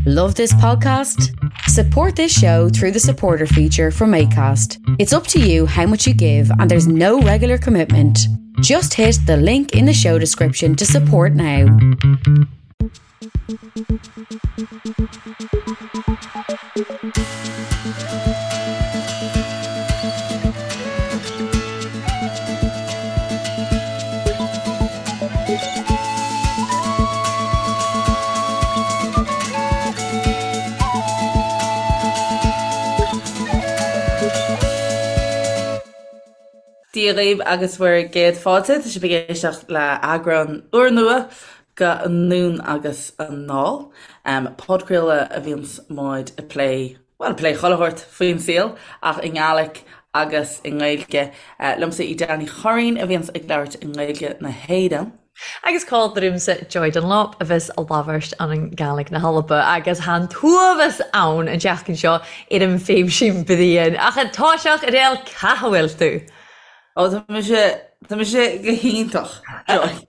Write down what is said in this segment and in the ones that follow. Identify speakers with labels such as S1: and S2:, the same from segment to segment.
S1: Love this podcast? Support this show through the supporter feature from ACAST. It's up to you how much you give, and there's no regular commitment. Just hit the link in the show description to support now.
S2: Dia dhaoibh agus bhur gcéad fáilte. Tá sibh ag éisteacht le eagrán úrnua de Anonn agus Anall, podchraoladh a bhíonns muid ag plé, bhuel, ag plé chuile shórt faoin saol ach i nGaelic agus i nGaeilge. Liomsa í Dara Ní Churraoin a bhíonns ag labhairt i nGaeilge na hÉireann.
S3: Agus còmhla riumsa Joy Dunlop a bhios a' labhairt ann an Gàidhlig na h-Alba agus tha an t-uabhas ann an tseachtain seo air an phéimsín bliadhain. Ach a' toiseach Edel ca bhfuil tú?
S2: Ó tá mise, tá mise go hiontach, Joy.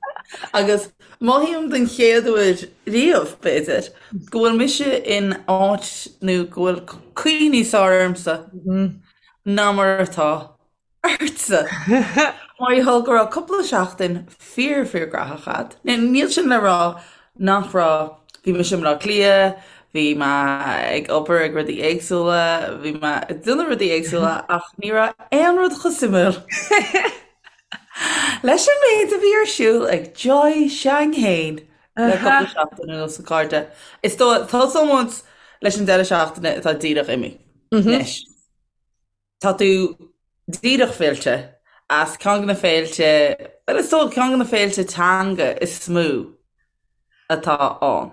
S2: Agus mothaím den chéad uair riamh, b'fhéidir, go bhfuil mise in áit nó go bhfuil caoi níos fearr ormsa ná mar atá ortsa! Mar gheall go raibh cúpla seachtain fíor fíor graitheach a'd. Níl sin le rá nach raibh, bhí mise i mBleá Cliath, bhí mé ag obair ag rudaí éagsúla, bhí mé ag déanamh rudaí éagsúla ach ní raibh aon rud chomh suimiúil leis an méid a bhí ar siúl ag Joy s'againn fhéin le cúpla seachtain anuas a chairde. Is dóigh, tosóidh muid leis an deireadh seachtaine atá díreach imithe anois. Tá tú díreach fillte as ceann de na féilte, bhuel is dóigh ceann de na féilte teanga is mó atá ann.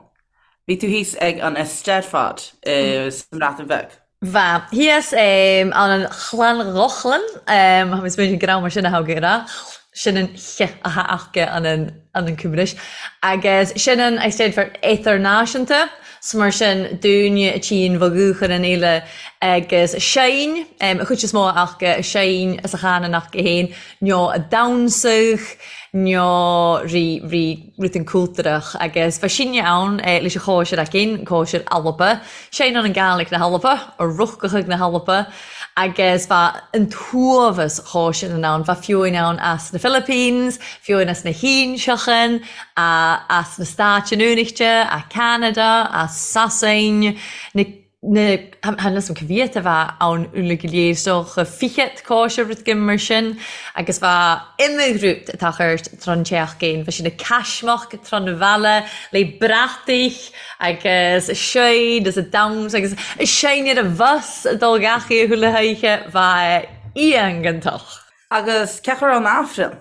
S2: Bhí tú thíos ag an Eisteddfod sa mBreatain Bheag.
S3: Bha. Thíos ann an Llangollen, tha mi smaoineachadh gur ann mar sin a tha gu ràdh, sin an ch a tha aca ann an ann an Cymraeg. Agus sin an Eisteddfod Eadar-Nàiseanta. 'S mar sin dúinne a tchíonn bha dhúchan an fhéile agus a seinn, a chuid is mó aca a seinn is a chanann aca féin, nó a damhsadh, nó ri, ri, rudan cúltarach. Agus bha sinne ann leis an chóisir againn, cóisir Alba, seinn ann an Gàidhlig na hAlba, a Ruthgachadh na hAlba, agus bha an t-uabhas chóisearan ann, bha fiúin ann as na Philippines, fiúin as na hÍnseachan, as na Stáit Aontaithe, as Ceanada, as Sasain, na na chan fhios a'm ca mhiat a bha ann uilig go léir, is dócha fichead cóisir rud éigin mar sin, agus bha iomdha rud a' tochairt tron tseachdain, bha sinn a' caismeach tron a' bhealaigh le brataich agus a' seinn is a' damhsa agus a' seinn ar an bhus a' dul gach oíche chuile hoíche, bha iongantach.
S2: Agus cén chaoi a raibh an Aifreann?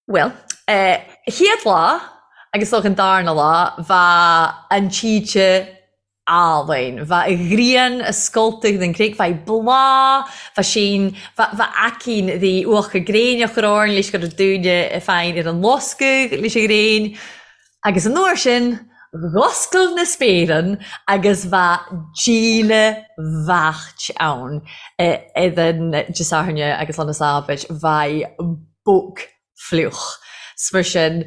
S3: Bhuel, chéad lá agus is dócha an darna lá, bha an tSíde álainn. Bha a ghrian a scoltadh den gcreig, bha i bláth, bha sín, bha, bha aicín dhi uachar gréine a chur orainn leis go raibh dúine féin ar an loscadh leis an ghréin. Agus an uair sin, dh'oscail na spéireann agus bha díle bheaicht ann idir Dé Sathairne agus lá na Sábait, bha bog fliuch. 'S mar sin,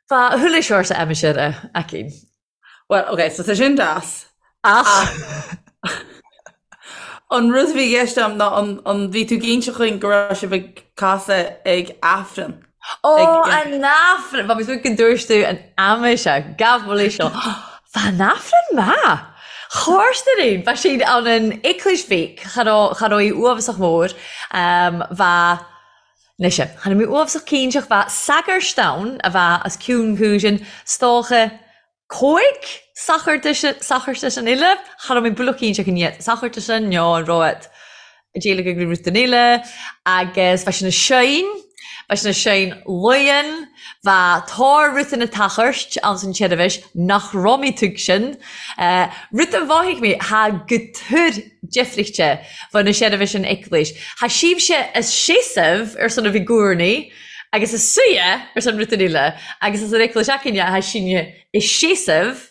S3: bha chuile shórt aimsire againn.
S2: Well, ok, so tá sin deas.
S3: Ach.
S2: An rud a bhí i gceist agam ná an, an bhí tú ag inse chugainn go raibh sibh ag casadh ag Aifreann?
S3: Ó, an Aifreann! Bha mi smaoineachadh gun dubhairt thu an aimsir, gabh mo leithsgeal. Bha an Aifreann math! Chòrstair aon, bha sinn ann an Eaglais Bheag, cha robh, cha robh í uabhasach mòr, bha, Anois, chan eil mi uabhasach cinnteach bha sagairt ann a bha os cionn chúisean, 's dócha còig sachartas an uile, cha raibh mé buileach cinnteach an iad sachartasan nó an raibh ag déileáil le rud den uile, agus bha sinn a seinn, bha sinn a seinn luighean, bha tàr rudan a tachairt anns an tseirbhis nach raibh mi tuigsean, rud a mhothaigh mi, tha gu tur deifrichte bha na seirbhis an Eaglais. Tha sibhse a seasamh ar son a bhith gcúrnaí agus a suidhe ar son rudan eile agus as an Eaglais againne tha sinne a seasamh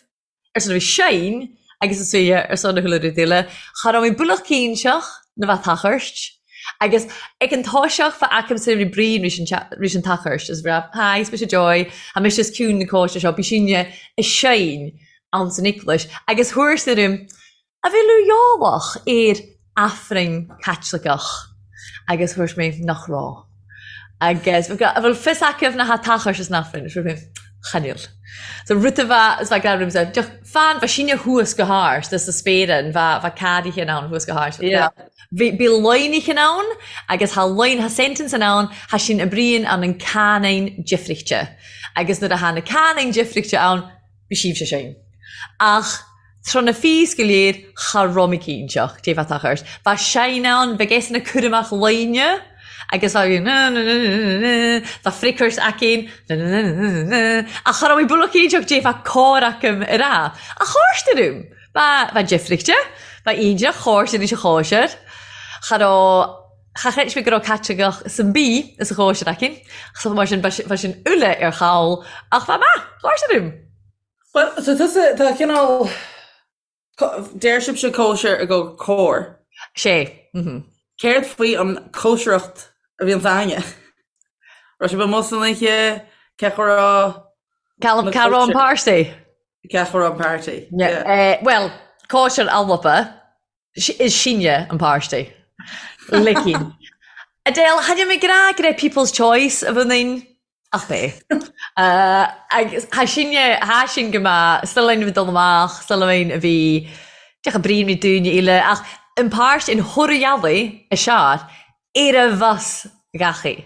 S3: ar son a bhith seinn agus a suidhe ar son a chuile rud eile. Cha raibh mé buileach cinnteach na bheith tachairt agus ag an toiseach bha agamsa ri bruíon ris an tachairt is bhí Hi, is mise Joy, tha mise os cionn na cóiste seo, bí sinne a seinn. Ann san Eaglais agus thabhairt orm a bhfuil uaigheálach ar Aifreann Caitliceach agus thabhairt mé nach raibh. Agus a bhfuil fios acu na ha-tachais san Aifreann is mé chan fhuil. So rud a bheadh is bheadh grá ormsa deoch fan bheadh síne thuas go hard is sa spéireann bheadh bheadh cadaithe in ann thuas go hard. Yeah. Bhí bhí loinithe ann agus thá loin thá sentence in ann thá sin a bríonn ann an canine difrichte agus nuair a thá na canine difrichte ann Bhí sibhse sin. Ach tráth na fís go léir cha raibh mé cinnteach dé bheith ort. Bheadh sein ann, bheadh eisean ag cur amach loine agus bheadh na na na na na bheadh fricairt aicinn na na na na na na ach cha raibh mé buille cinnteach dé bheadh cár acu ar a. Ach tháirst orm. Ba ba difrichte, ba iontach tháirst anois a chóisir. Cha raibh Cha chreid mé go raibh Caitliceach san bí is a chóisir aici, so mar sin bheadh sin uile ar chall ach bheadh maith, chóisir orm.
S2: Bhuel, so tusa, tá cineál, deir sibhse cóisir i gcomhair cóir.
S3: Sé, mhm.
S2: Céard faoi an cóisireacht a bhíonns a'inne? Raibh sibh amuigh san oíche, cé go raibh
S3: Cá raibh an páirtí?
S2: Cé go raibh an party?
S3: Bhuel, cóisir Alba, Is sinne an páirtí. Licín. Adele, tha mi ag ràdh gur e People's Choice a bhun inn, ach b'é. Agus tha sinne, tha sinn go maith, 's linn a bhí dul amach, 's linn a bhí, deoch a brí ní dúinne uile, ach an páirt in Thoradh a sear, ar a bhus ghachaí.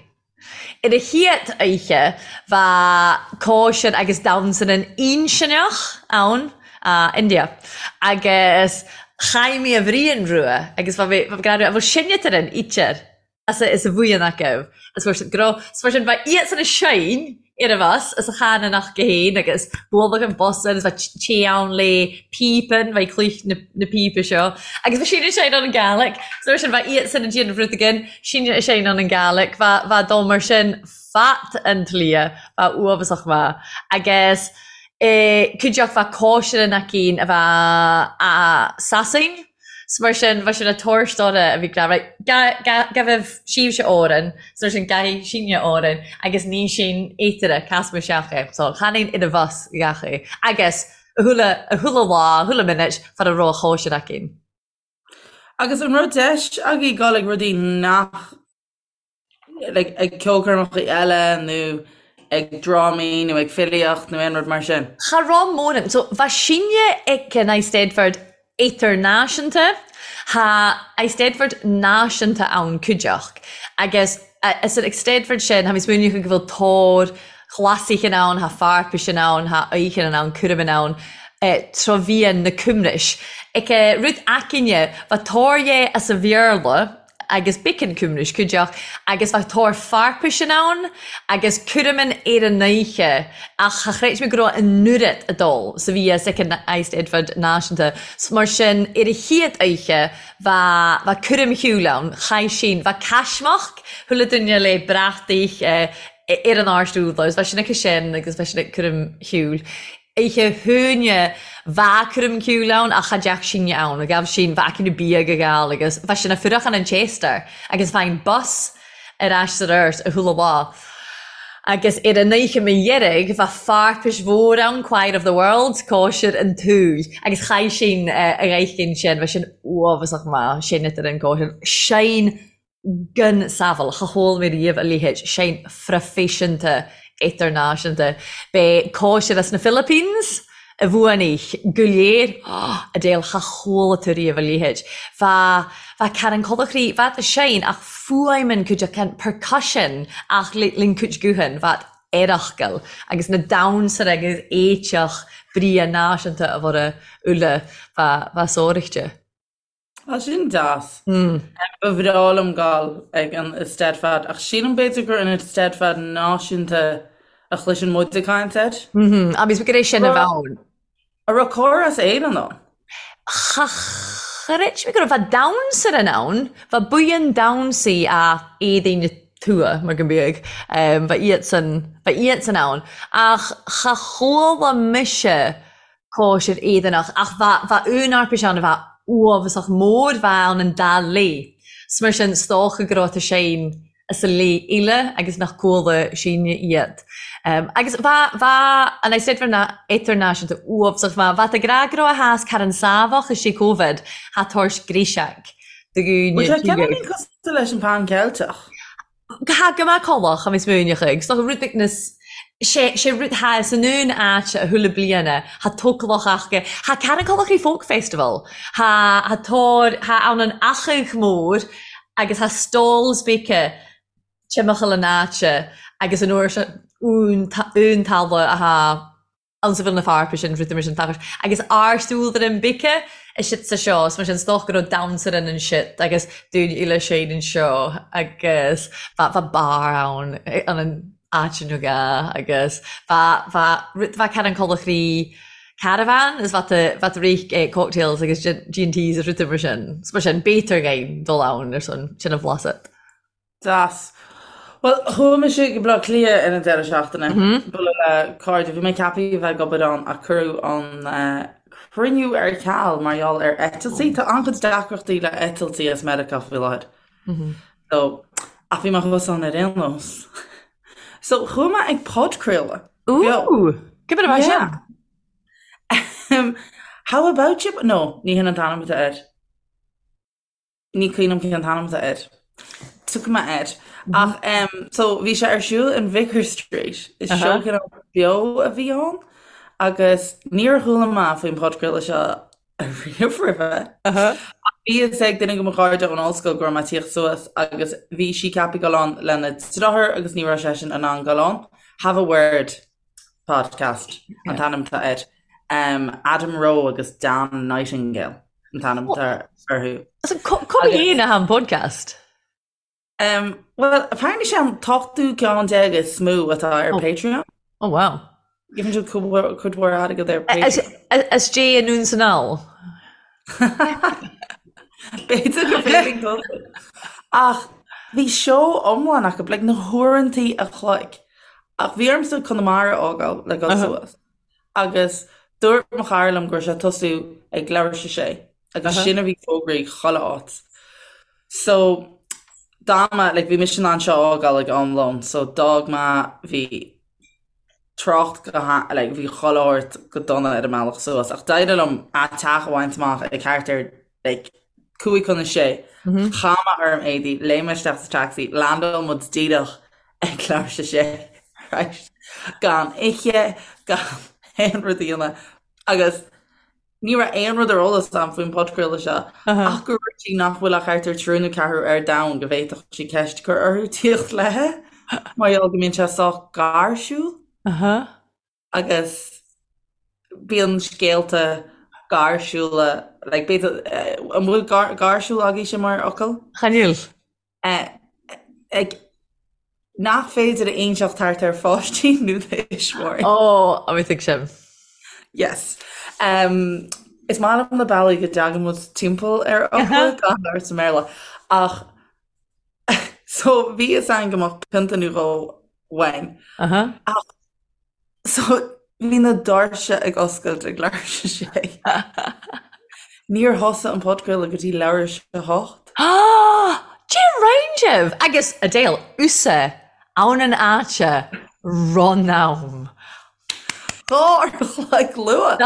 S3: Ar a chéad oíche bha cóisir agus damhsa nan Uinseanach ann, India, agus chaith mé a bhrian rua agus bha mé ag rá, bhuel sinne tar an ítear as a is a bhuíon acu is fuair siad go raibh, is mar sin bha iadsan a seinn ar a bhus is a chan an acu féin agus bualadh an bus agus bha tae ann le píopan, bha cluich na na píopa seo agus bha sin a seinn ann an Gàidhlig so mar sin bha iadsan a déanamh rud again Sin a seinn ann an Gàidhlig bha bha dul mar sin fat an tslí bha uafasach maith agus eh cuideachd bha cóisir an aicín a bha a Sasain 's mar sin bha sin a tabhairt orra a bhí ag rá right ga ga gabh síbhse Árainn 's mar sin gabhaidh sinne Árainn agus ní sin éataire casma isteach é so chan aon ina bhus gach é agus a chuile a chuile lá a chuile minute fad a raibh a chóisir aicín.
S2: Agus an raibh deis agaibh dul ag rudaí nach like ag ceolchoirmeacha eile nó ag drámaí nó ag filíocht nó aon rud mar sin?
S3: Cha raibh mórán. So bha sinne ag an Eisteddfod Idirnáisiúnta. Tha Eisteddfod náisiúnta ann cuideachd agus is an Eisteddfod sin, tha mi smaoineachadh go bhfuil tóir ghlasaichin ann, tha fairpisean ann, tha oíchean ann, cúramin ann, tro-mhian na Cumrais. Ic rud aicinne, bha tóir dhe as a Bhéarla agus bicean Cumrais cuideachd agus bha tóir fairpisean ann agus cúramin ar an oíche ach cha chreid mé go raibh an oiread ag dul 's a bhí as ic an Eisteddfod Náisiúnta. 'S mar sin ar a chéad oíche bha bha cúram shiúil ann, chaith sin, bha caismeach, chuile duine le brataich, ar an áirt úd agus bha sin aici sin agus bha sin ag cúram shiúil. Oíche hUaine bha cúram ciúil ann ach cha dteach sinne ann, ghabh sin, bha aici na bia go geal agus bha sin a fuireachán an Chester agus bha an bus ar ais sa ort a chuile lá. Agus ar an oíche mo dheiridh bha fairpis mhór ann, Choir of the World, cóisir an tSúil agus chaith sin a ghaithcinn sin, bha sin uafasach maith, sin idir an cóisir, sin gan samhail, cha chuala mé riamh a leithéid, sein phroifisiúnta idirnáisiúnta. B'é cóisir as na Philippines a bhuaigh an oích' go léir, Adele, cha chuala tú riamh a leithéid. Bha, bha Karen Colachrí, bha sein ach fuaimeann cuid acu, percussion ach linn cuid guthann, bha earachcail agus na damhsar agus éiteach bria náisiúnta a bhora uile, bha, bha sóireachta.
S2: Tá sin deas. Ba bhreá liom dul ag an Eisteddfod ach sílim b'fhéidir gur an Eisteddfod náisiúnta a chloiseann muid ag caint air.
S3: Agus gur é sin a bheadh ann.
S2: An raibh cór as Éirinn ann?
S3: Cha chreid mé go raibh. Bha damhsar in ann, bha buíon damhsaí a éadaí na tuath mar go mbeadh, bha iadsan, bha iadsan ann. Ach cha chuala mise cóisir Éireannach ach bha bha únarpais ann a bha uafasach mór bha ann an dá laoi 's mar sin 's dócha go raibh tá sein. As a leith eile agus nach cuala sinne iad. Agus bha, bha an Eisteddfod Idirnáisiúnta uabhsach, bha, bha tá grá go raibh a thásc thar an Sábhach is sé Covid, tha toirt gréiseag do
S2: dhúine Bhfuil sé ceann cosúil leis an Pan Ceilteach?
S3: Tha go maith colach a bhí smaoineach ag, so rud ag nas, sé, sé rud tha is an un áite a chuile bliana, tha tócalach aca, tha Carn Colachraí Folk Festival, tha, tha tóir, tha ann an Achadh Mór agus tha stalls beice timcheall an áite agus an uair seo ún, ún talamh a tha ann sa bhfuil na fearpa sin rud mar sin tachairt agus ár súil an beice a sit sa seo is mar sin 's dócha go raibh damhsa in an sit agus dúinn uile séin anseo agus bha bha bar ann an an áit nó ga agus bha bha rud bha Carn Colachraí caravan is bha tú bha tú rith cocktails agus G&Ts is rudaí mar sin. 's mar sin b'fhéidir againn dul ann ar son sin a bhlaiseadh.
S2: Deas. Bhuel, chuaigh mise go Baile Átha Cliath ar an deireadh seachtaine, bualadh le cairde. Bhí mé ceaptha a bheith ag obair ann ach cuireadh an cruinniú ar ceal mar gheall ar eitiltí. Tá an-chuid deacrachtaí le eitiltí as Meiriceá faoi láthair. So, ach bhí mé thuas ann ar aon nós. So, chuaigh mé ag podchraoladh.
S3: Ooh! Cé mar a bheith
S2: sin? How about you? No, ní hin an t-ainm atá air. Ní cuimhin liom cén t-ainm atá air. Tiocfaidh mé air. Ach em so bhí sé ar siúl in Vicar Street. Is seó cineál beo a bhí ann agus níor chuala mé faoin podchraoladh seo riamh roimhe. Ach bhí fhios ag duine de mo chairde ón ollscoil go raibh mé ag tíocht suas agus bhí sí ceaptha dul ann lena deartháir agus ní raibh seisean in ann dul ann. Have a Word podcast an t-ainm atá air. Adam Rowe agus Dan Nightingale an t-ainm atá orthu.
S3: So cá bhfuil an podcast?
S2: Um, well, apparently sé an t-ochtú ceann déag is mó atá ar oh. Patreon.
S3: Oh wow.
S2: Gheibheann siad cuid mhór airgead ar Patreon.
S3: As Jay anonn 's anall.
S2: B'fhéidir go bhféadfainn dul. Ach bhí seó iomlán acu, like na huaireantaí a chloig. Ach bhí ormsa Conamara a fhágáil le dul suas. Agus dúirt mo chara liom go raibh sé ag tosú ag leathuair tar éis a sé agus sin a bhí fógraithe chuile áit. So d'fhan mé, like bhí mise in ann seo a fhágáil ag am lóin, so d'fhág mé, bhí trácht go ha, like bhí chuile shórt go dona ar an mbealach suas ach d'éirigh liom a' teach a bhaint amach ag thart ar like 5:55. Chaith mé orm éadaí, léim mé isteach sa taxi, landáil muid díreach ag leathuair tar éis a sé, right? Gan ithe, gan aon rud a dhéanamh agus ní raibh aon rud ar eolas agam faoin podchraoladh seo ach gur dhúirt sí nach bhfuil ach thart ar triúr nó ceathrú ar domhan go bhféadfadh sí ceist a chur orthu tíocht léithe mar gheall go mbíonn sé sách gáirsiúil agus bíonn scéalta gáirsiúla like b'fhéidir an bhfuil gáirsiúil agaibhse mar fhocal?
S3: Chan fhuil.
S2: Ag nach féidir a inseacht thart ar pháistí nó tuismitheoirí.
S3: Ó, a bhí ag sin.
S2: Yes. Um, is maith liom na bealaí go dtagann muid timpeall ar fhocla gan labhairt i mBéarla. Ach so bhí fhios againn go mbeadh pionta nó dhó uainn. Ach So, bhí na doirse ag oscailt ag leathuair tar éis a sé. Níor thosaigh an podchraoladh go dtí leathuair tar éis a hocht.
S3: Cé roinn sibh? Agus, Adele, usa, ann an áite, run am.
S2: Dhá uair a chloig luath.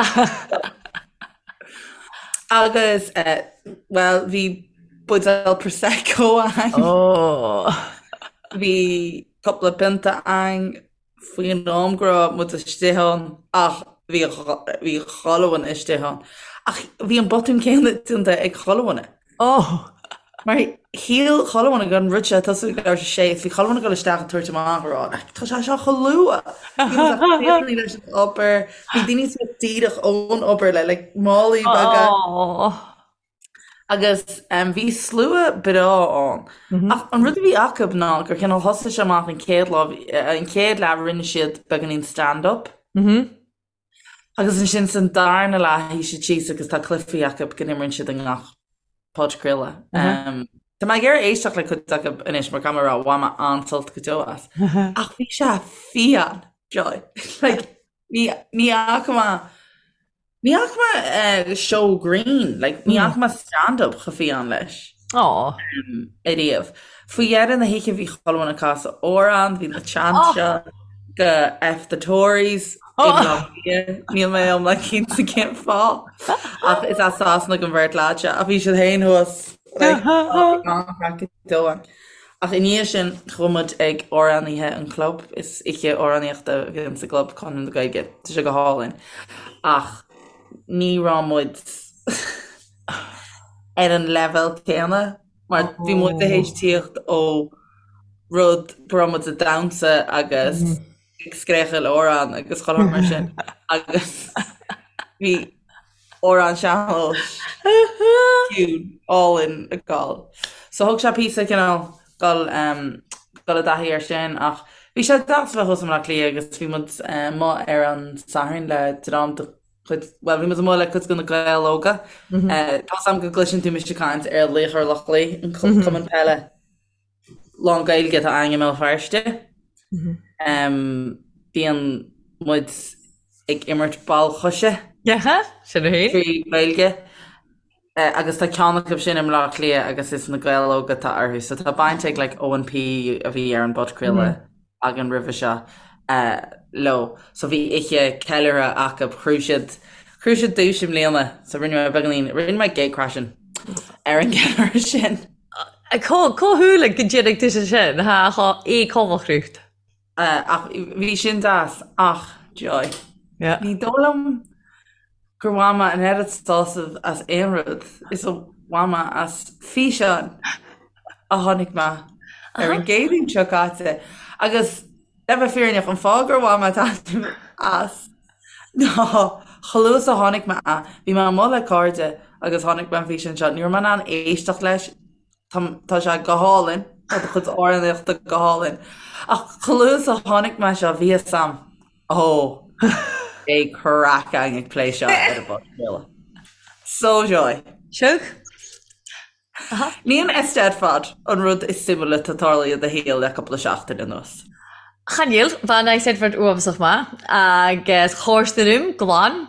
S2: Agus, bhuel, bhí buidéal Prosecco againn.
S3: Oh.
S2: Bhí cúpla pionta againn. faoin am go raibh muid istigh ann ach bhí bhí chuile dhuine istigh ann. Ach bhí an botún céanna déanta ag chuile dhuine.
S3: Oh!
S2: Mar shíl chuile dhuine go raibh an rud seo ag tosú ag leathuair tar éis a sé is bhí chuile dhuine ag dul isteach ag tabhairt amach ag rá like tá sé seo chomh luath! Bhí muid ag críochnú leis an obair, bhí daoine suas díreach ón obair le like málaí beaga.
S3: Oh!
S2: Agus bhí slua breá ann. Ach an rud a bhí acu ná gur cineál thosaigh sé amach an chéad lá, an chéad leath rinne siad beagáinín stand up. Agus ansin san darna leath shuigh siad síos agus tá cluichí acu go n-imríonn siad i ngach podchraoladh. Tá mé ag iarraidh éisteacht le cuid acu anois mar caithfidh mé a rá bhain mé an-sult go deo as. Ach bhí sé fiáin, Joy. Like, ní ní fhaca mé Ní fhaca mé seó grinn, like, ní fhaca mé stand-up chomh fiáin leis.
S3: Aww.
S2: Ariamh. Faoi dheireadh na hoíche bhí chuile dhuine ag casadh amhrán, bhí na chants seo go F the Tories i mBleá Cliath. Níl mé iomlán cinnte cén fáth ach is as Sasana don bheirt leaid seo ach bhí siad féin thuas like, an-chraic dóibh. Ach i ndiaidh sin chuaigh muid ag amhránaithe an chlub, is oíche amhránaíochta a bhíonn sa gclub Conradh na Gaeilge, tá sé go hálainn. Ach ní raibh muid ar an leibhéal céanna mar bhí muid tar éis tíocht ó rud go raibh muid ag damhsa agus ag scréachaíl amhrán agus chuile shórt mar sin agus bhí amhrán sean-nóis ciúin álainn ag gabháil. So thóg sé píosa cineál dul dul i dtaithí air sin ach bhí sé deas a bheith thuas i mBleá Cliath agus bhí muid amuigh ar an Satharn le dream de chuid, bhuel, bhí muid amuigh le cuid de na Gaeil Óga. Tá's a'm go gcloiseann tú mise ag caint ar Laochra Loch Lao, an cumann peile lán-Ghaeilge atá againn i mBéal Feirste. Bíonn muid ag imirt ball choise.
S3: Sin é.
S2: Trí Ghaeilge. Agus tá ceann acu sin i mBleá Cliath agus is na Gaeil Óga atá orthu. So tá baint ag like Eoin P a bhí ar an bpodchraoladh againn roimhe seo leo. So bhí oíche ceiliúrtha acu. Ghnóthaigh siad, ghnóthaigh siad duais i mbliana. So rinne mé beagáinín, rinne mé gatecrashing ar an gceiliúradh sin.
S3: Cá huair go dtéanfaidh tú sin? Thá é comhchruth.
S2: Ach bhí sin deas. Ach, Joy, ní dóigh liom gur bhain mé an oiread sásaimh as aon rud is a bhain mé as físeán a chonaic mé ar an gCéadaoin seo caite. Agus le bheith fírinneach, an fáth gur bhain mé taitneamh as ná chomh luath is a chonaic mé é, bhí mé amuigh le cairde agus chonaic mé an físeán seo, ní raibh mé in ann éisteacht leis, Tá sé go hálainn, tá do chuid amhránaíochta go hálainn. Ach chomh luath is a chonaic mé seo, bhí fhios a'm, ó, beidh craic againn ag plé seo ar an bpodchraoladh. So Joy.
S3: Siúg.
S2: Ní an Eisteddfod an rud is suimiúla atá tarlaithe i do shaol le cúpla seachtain anuas.
S3: Chan eil, bha an Eisteddfod uabhasach math, agus chòrasdan ium glan.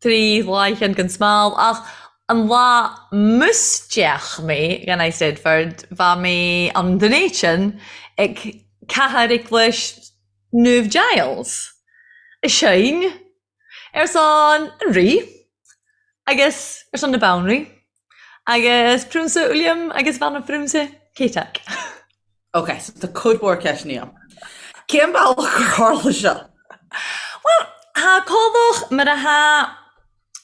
S3: 3 lá gan smál, ach an lá mus d'fhéach mé dhan Eisteddfod, bha mé ann Dunedin ag Cathair Eaglais Naomh Giles, a sheinn ar son an Rí agus ar son na Banríon agus Prionsa Uilleam agus Bhanphrionsa Ceitidh.
S2: Ok, so tá cuid mhór ceisteanna agam. Cén bealach gur tharla seo?
S3: Bhuel, thá comhlach mar a thá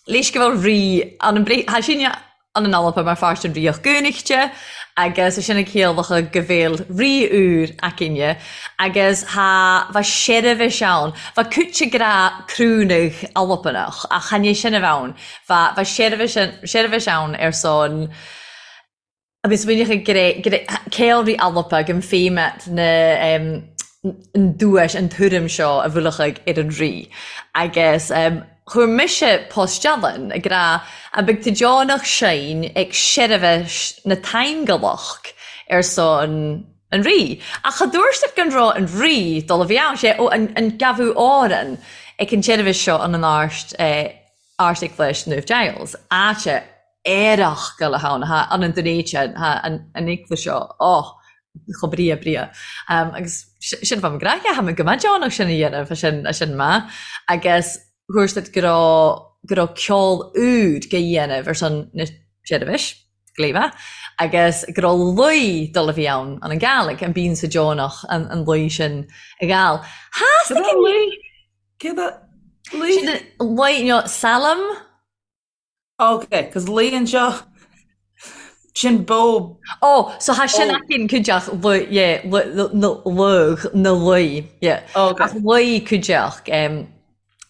S3: leis go bhfuil rí ann an brí, thá sinne ann an Alba mar pháirt den Ríocht Aontaithe agus é sin ag ciallachadh go bhfuil rí úr againne agus thá bha seirbhis ann, bha cúite grá crúnadh Albanach ach chan é sin a bheith ann, bha bha seirbhis seirbhis ann ar son Agus rinneadh a ceolrí Alba go mféimeat na an duais, an tuairim seo a bhuailfeadh ar an rí. Agus chuir mise post-dealán ag rá an beidh tú deonach sinn ag seirbhis na Taingealach ar son an rí. Ach cha dúirt siad gan raibh an rí dul a bhí ann, sé ó an gabhadh Árann ag an tseirbhis seo an an Áirt Ardeaglais Naomh Giles, áite aerach go le hann, thá an an Dunéite, thá an an eaglais seo, oh, chomh bria bria. Agus sin fá mo ghraithe, thá mé go maith deonach sin a dhéanamh, a sin, a sin maith. Agus thuairt siad go raibh, go raibh ceol úd go dhéanamh ar son na seirbhis, gléibhe, agus go raibh luí dul a bhí ann, an an Gàidhlig, an bíonn sa deonach an an luí sin a ghabháil.
S2: Theastaigh an luí? Céard é luí?
S3: Sin luí, nó salm?
S2: Ok, cos luí anseo, sin bó.
S3: Ó, so thá sin againn cuideachd lu, yeah, lu, lu, luigh, na luí, yeah.
S2: Ok.
S3: Ach luí cuideachd, em,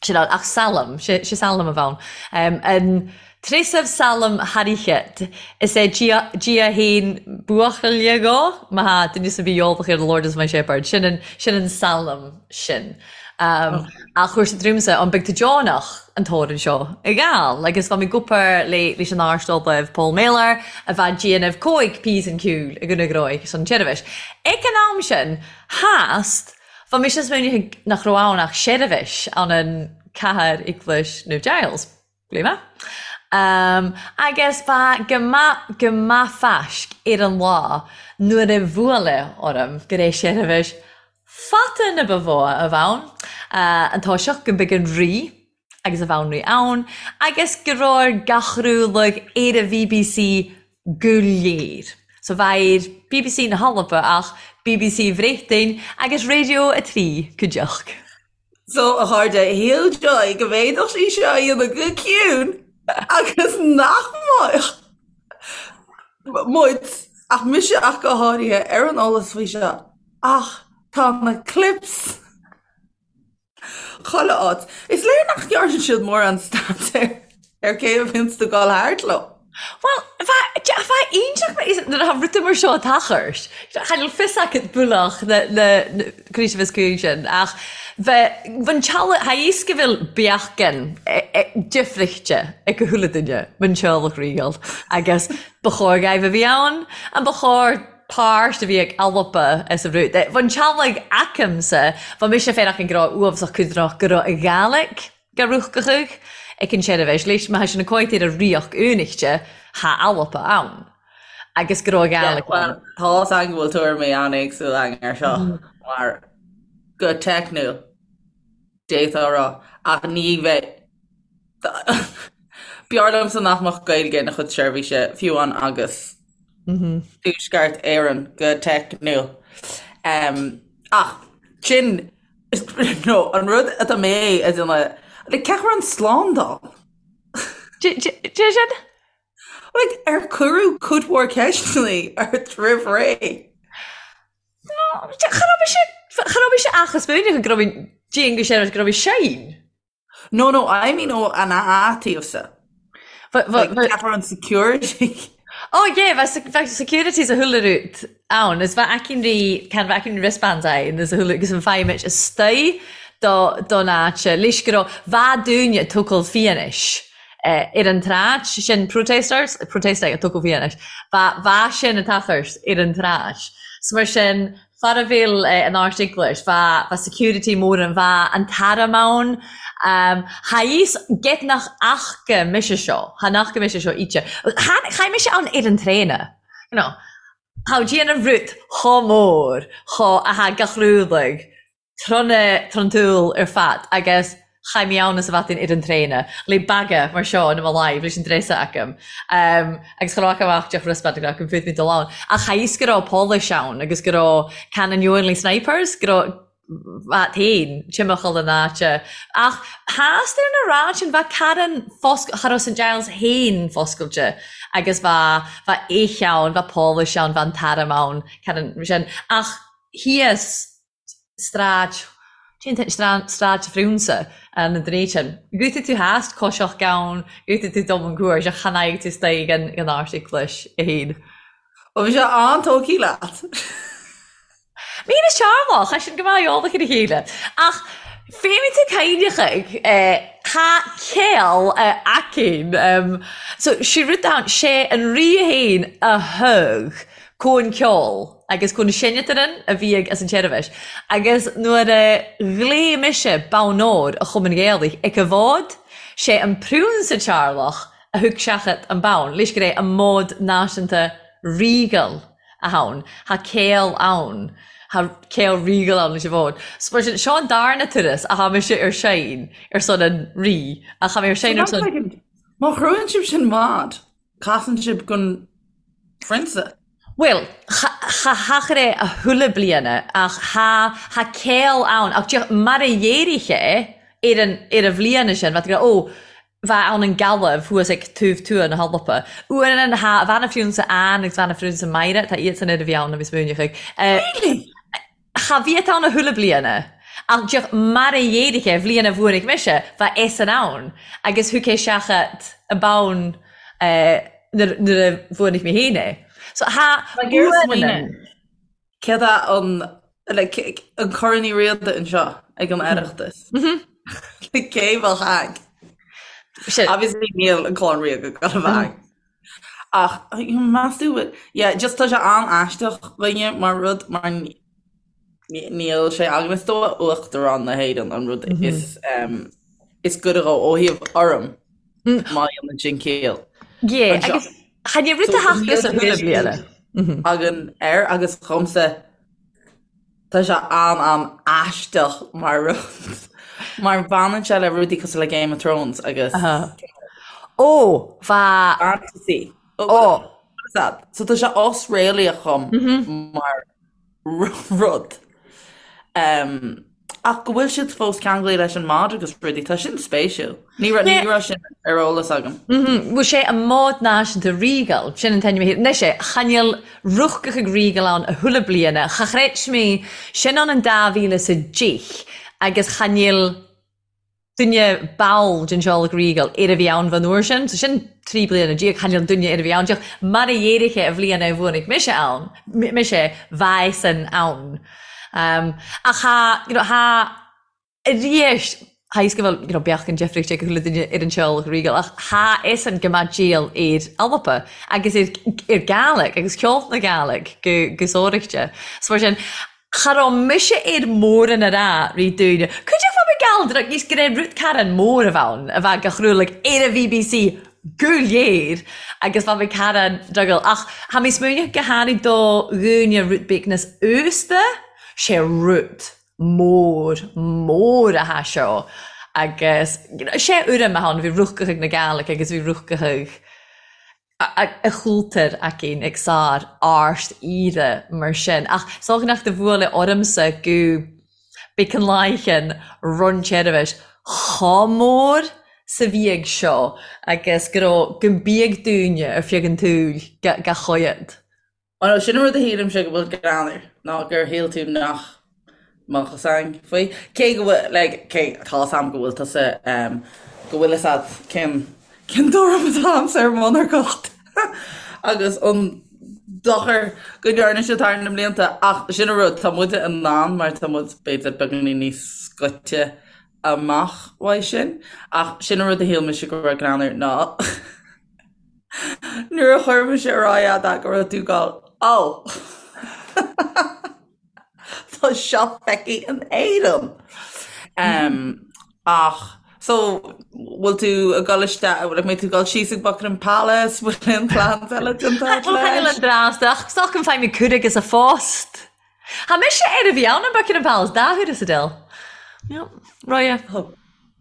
S3: sin ann, ach salm, sé, sé salm a bheadh ann. Em, an treasamh salm thairchead, is é Dia, Dia fhéin buachaille dhó, má thá duine sa bhí eolach ar The Lord is my shepherd, sin an, sin an salm sin. Ach chuir siad romhamsa an beidh tú deonach an t-amhrán seo a ghabháil agus bha mi ag obair le leis an Ard-Ollamh Paul Mellor a bha ag déanamh cóig píosan ceoil i gConradh Ghnóthaigh san tseirbhis. Ag an am sin, theast, bha mise ag smaoineamh nach raibh ann ach seirbhis ann an cathair Eaglais Naomh Giles. Glima. Agus bha go math go math faisg air an lá nuair a bhuaileadh orm gur é seirbhis fata na ba mhó a bh' ann, an toiseacht go mbeadh an Rí agus a bhanríon ann agus go raibh ar gach rúlag ar an bhBC go léir. So bheadh ar bbc na hAlba ach bbc Bhréachtain agus Radio 3 cuideachta.
S2: So, a chairde, shíl Joy go bhféadfadh sí seo a dhéanamh go ciúin agus nach mbeadh muid, ach mise ach go háirithe, ar an eolas faoi seo. Ach tá na clips chuile áit. Is léir nach ndearna siad mórán staidéir ar cé a bhíonns ag dul thart leo.
S3: Bhuel, bheadh iontach nuair atá rudaí mar seo ag tochairt. Cha bhfuil fios acu bualach na na críche bheas cuí sin ach bheith an teaghlach tha fhios go bhfuil beacán difrichte ag chuile duine man teaghlach ríoghal agus ba chóir dhaoibh a bhí ann an ba chóir páirt a bhí ag Alba as an rud. Bhí an teaghlaigh aicmse, bhí mise féin ach an go raibh uafásach cuidrach go raibh a Ghàidhlig ga ruachgachadh ag an seirbhís leis má tha sin a cóit ar a ríocht únichte tha Alba ann agus go raibh a Ghàidhlig ann.
S2: Tá's againn go bhfuil tuairimí an-éagsúla againn ar seo mar go teicniúil d'fhéadfá a rá ach ní bheidh B'fhearr liomsa nach mbeadh Gaeilge ina chuid seirbhíse fiú amháin agus Tuaisceart Éireann go teicniúil. Ach sin nó an rud atá mé a déanamh, like cén chaoi a raibh an slándáil?
S3: Dé sin?
S2: Like ar cuireadh cuid mhór ceisteanna ort roimh ré?
S3: No, cha raibh mise, cha raibh mise ach ag smaoineamh go raibh mé dian go sin go raibh mé sein.
S2: No, no, I mean ó an taobhsa. But, but, but, Ceapar an security.
S3: Oh yeah, bheadh bheadh security sa chuile rud ann, is bheadh aicinn rí, can bheadh aicinn wristbands ann is a chuile, agus an feidhm istigh do don áit, leis go raibh, bheadh daoine ag tógáil fianaise ar an tsráid, sin protesters, protestaigh ag tógáil fianaise, bheadh, bheadh sin ag tochairt ar an tsráid. So mar sin, Far a bhfuil an Ard-Eaglais, bha security mór ann, bha an t-arm ann. Tha fhios get nach fhaca mise seo, tha nach fhaca mise seo íte. Chaith mise ann ar an traein, you know. Tha déanamh rud chomh mór, chomh, a tha gach rúdaigh, trona, tron tsúil ar fad agus Chaith mé ann is a bhataín ar an traein le baga mar seo in mo láimh leis an dréasa agam agus cha raibh amach deoch wristband agam go bhféadfainn dul ann. Ach cha fhios go raibh póilís ann agus go raibh Canon Ewanley Snipers, go raibh bhat féin timcheall an áite. Ach theastaigh ar na ráid sin bheadh Karen fosc cha raibh St Giles féin foscailte agus bheadh bheadh éich ann, bheadh póilís ann, bheadh an t-arm ann, Karen sin. Ach thíos Stráid, cén t-ainm, Stráid Phriúnsa an dréid sin. Guthaigh tú theas, coiseach gann, guthaigh tú dom an cuairt, ach chan fhaighidh tú istoigh an Ard-Eaglais a haon.
S2: Bhuel, bhí sé an-tógtha leat.
S3: Mín is teaghlach, tá sin go maith eolach ar a chéile. Ach féadfaidh tú cainneachaigh, tá céol aicinn. So, sé rud ann, sé an rí fhéin a thug Cóin ceoil agus cóin seinneataran a bhí ag as an tseirbhis agus nuair a ghlaoigh mise bonn óir a Chumann Ghaelaigh ag a bhfód, sé an Priúnsa Tearlach a thug seachad an bonn leis gur é an mód náisiúnta ríogal a ann, thá céol ann, thá céol ríogal ann leis an bhfód. So mar sin, seo an darna turas a thá mise ar seinn ar son an Rí, ach thá mé ar seinn ar son.
S2: Má chruthaíonn sibh sin mod, Casann sibh gon phrionsa.
S3: Bhuel, cha theachair é a thuilleadh bliana, ach tha, tha céol ann, ach díreach mar a dh'éirigh é ar an, ar an bhliana sin, bheadh tú ag rá, ó, bheadh ann an Gallaibh thuas ag taobh tuath na hAlpa. Uaireanna tha, bhean an phriúnsa Anne agus bhean an phriúnsa Máire, tá iadsan ar a bhí ann a bhí smaoineach ag.
S2: Really?
S3: Cha bhíodh ann a thuilleadh bliana, ach díreach mar a dh'éirigh é, bhliain a bhuanaigh mise, bheadh eisean ann, agus thug é seachad an bonn nuair a bhuanaigh mé féin é. So tha
S2: Like ar smaoineamh, céard é an, like, an Corn Uí Riada anseo ag an Oireachtas? Like, cé bheadh ag? Obviously níl an Clann Ríoga ag gabháil a bheith ag. Ach meas tú, yeah, just tá sé an-aisteach dhuine mar rud, mar níl sé againn is dóigh Uachtarán na hÉireann an rud is is gaire dhó ó thaobh urraim. Má dhéanann sin ciall.
S3: Yeah, agus chan é rud a thachtadh sa chuile bliana.
S2: Againn air agus dhomsa tá sé an-an-aisteach mar rud mar baineann sé le rudaí cosúil le Game of Thrones agus
S3: Ó, bha.
S2: Fantasy. Ó. So tá sé osréalaíoch dhom mar rud. Ach go bhfuil siad fós ceanglaithe leis an mbád agus rudaí, tá sin spéisiúil. Ní raibh ní raibh sin ar eolas agam.
S3: Bhuel sé an mbád náisiúnta Regal, sin an t-ainm a thit. Anois é, chan fheil rúchadh ag Regal ann a thuilleadh bliana, cha chreid mé, sin ann an 2010 agus chan fheil duine ball den teaghlach Regal ar a bhí ann fán uair sin, so sin 13 bliana, chan fheil duine ar a bhí ann díreach mar a dhéarfaidh a bhliain a bhuanaigh mise ann, mise bheadh san ann. Um, ach tha, you know, tha arís, tha fhios go bhfuil, you know, beachan deifríocht ag chuile duine ar an teaghlach Regal, ach tha fhios an go mbeadh díol ar Alba agus ar, ar Gàidhlig agus ceol na Gàidhlig go, go sóireachta. So mar sin, Cha raibh mise ar mórán a rá ri daoine. Cuideachd fá mar gheall ar níos go raibh rud carn mór a bheith ann, a bheith go chrualag ar an bhBC go léir agus bheadh mé carn drogall. Ach tha mi smaoineachadh go h-àraidh do dhaoine rud beag níos aosta, sé rud mór, mór a tha seo agus sé urraim a tha ann, bhí rúchadh ag na Gàidhlig agus bhí rúchadh ag a chúltar againn ag sár árst aoire mar sin. Ach 's dócha nach do bhuaile ormsa go big an laighean run tseirbhis chomh mór 's a bhí ag seo agus go raibh go mbiadh daoine ar feadh an tsaoil ga choigead.
S2: Bhuel, sin an rud a shílimse go bhfuil greannmhar, ná gur shíl tú nach mbeadh fhios againn faoi. Cé go bhfuil, like, cé, tá fhios a'm go bhfuil tusa, em, go bhfuil fhios a'd cén, cén tuairim atá a'msa ar mhonarcacht agus an dochar go ndearna siad thar na mblianta, ach sin an rud, tá muide in ann mar tá muid b'fhéidir beagáinín níos scoite amach uaidh sin, ach sin an rud a shíl mise go raibh greannmhar ná Nuair a chuir mise ar aghaidh a'd go raibh tú ag gabháil, Ó! Tá seo feicthe in Éirinn! Ach, so, bhfuil tú ag dul isteach, like, mbeidh tú ag dul síos ag Buckingham Palace, bhfuil aon plans eile déanta agat
S3: leis? Bhuel, an dreas, ach is dócha go bhfaighidh mé cuireadh agus a phost. Tha mise air a bhí ann an Buckingham Palace dá huair sa dil. Yep, Roya.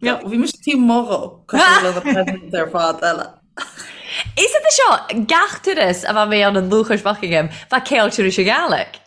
S2: Yep. Bhí mise taobh amuigh dhó, cosúil le na presidents ar fad eile.
S3: Is é seo, gach turas a bha mé ann an Lúcháis Buckingham, bha ceol turais a Ghàidhlig.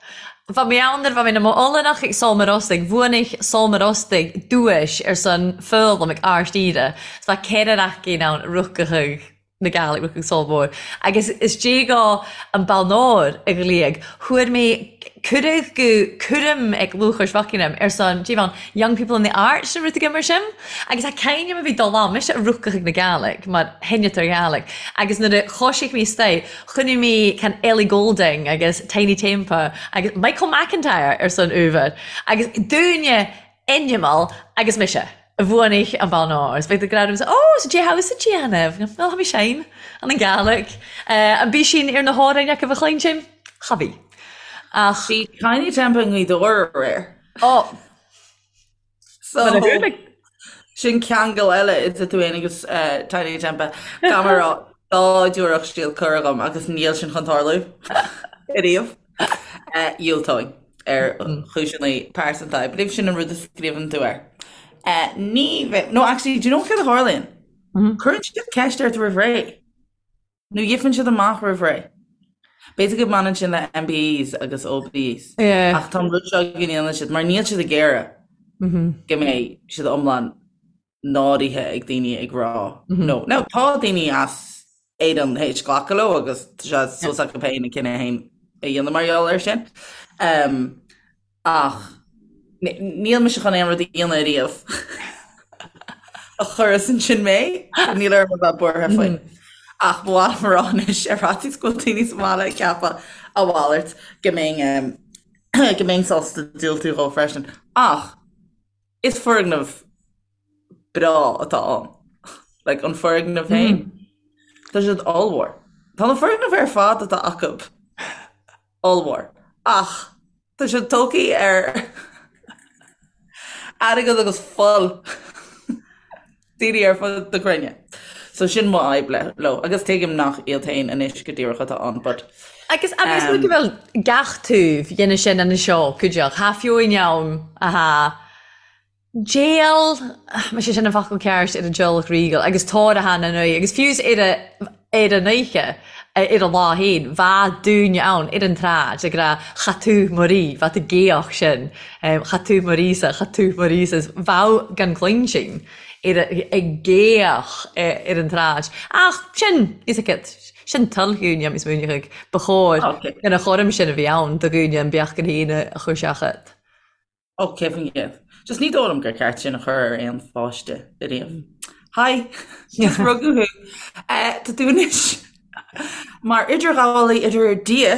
S3: Bha mé ann nuair a bha mé 'na m'Ollannach ag Solmar Ostaig, bhuanaich Solmar Ostaig duais ar son foghlaim ag Árst Aoire, 's bha ceithre raicín ann rucadh na Gàidhlig rucadh Sol Mór. Agus is déagá an balnóir a ghlaoigh, fuair mé cuireadh go cúram ag Lúcháis Bhuckingham ar son, dé bhean, Young People in the Arts nó rud éigin mar sin. Agus tá cainneam a bhí dul ann, mise a rucadh ag na Gàidhlig mar sheinneadar Gàidhlig. Agus nuair a choisigh mé istoigh, chonaic mé can Ellie Goulding agus Tinie Tempah agus Michael McIntyre ar son uabhar. Agus dúinne Animal agus mise a bhuanaigh an bonn óir. Is beidh do gradam sa Ó, sa dé house a déanamh. Well, tha mi seim an an Gàidhlig. An bí sin ar na hamhráin acu a chluinsinn? Cha bhí.
S2: Ach. Bhí Tinie Tempah i nGaoth Dobhair aréir.
S3: Ó.
S2: So, sin ceangal eile idir tú féin agus Tinie Tempah. Caithfidh mé a rá, dá dtabharfadh siad cuireadh dhom agus níl sin chun tarlú ariamh. Dhiúltóinn ar chúiseanna pearsanta. I believe sin an rud a scríobhann tú air. Ní bheidh, no actually, do you know céard a tharlaíonn? Cuireann siad ceist ort roimh ré. Nó gheibheann siad amach roimh ré. B'fhéidir go mbaineann sin le MBEs agus OBEs. Ach tá an rud seo go ndéanann siad, mar níl siad ag iarraidh go mbeidh siad iomlán náirithe ag daoine ag rá no. Now tá daoine as Éirinn théis glacadh leo agus tá sé suas acu féin a cinneadh féin a dhéanamh mar gheall air sin. Um, ach níl mise chun aon rud a dhéanamh ariamh a chuirfeas ansin mé, níl orm a bheith buartha faoi. Ach ba mhaith liom a rá anois ar fhaitíos go bhfuil daoine sa mbaile ag ceapadh a mhalairt go mbeinn go mbeinn sásta diúltú dhó freisin. Ach Is foirgneamh breá atá ann. Like, an foirgneamh féin. Tá siad ollmhór. Tá na foirgnimh ar fad atá acu ollmhór. Ach tá siad tógtha ar airgead agus fuil daoine ar fud na cruinne. So sin mo fhadhb le leo agus tuigim nach iad féin anois go díreach atá ann but
S3: Agus agus um, go bhfuil gach taobh dhéanamh sin an seo cuideach Tha fiúin ann a Déal, má sé sin an focal ceart ar an teaghlach ríogal agus tóir a thána an agus fiú ar a ar an oíche ar an lá féin bha dúine ann ar an tsráid ag rá cha tú mo rí, bha tú géach sin, cha tú mo rí-sa, cha tú mo rí-sa, is bheadh gan cluinstin ar ag géach ar an tsráid. Ach sin, is agat, sin toil dhúine is múineadh ba chóir gan a chúram sin a bhí ann do dhúine an beach gan féin a chur seachad.
S2: Ó, 100%. Just ní dóigh liom gur ceart sin a chur ar aon pháiste ariamh. Hi! Just rugadh thú. Eh, tá tú anois mar idirghabhálaí idir Dia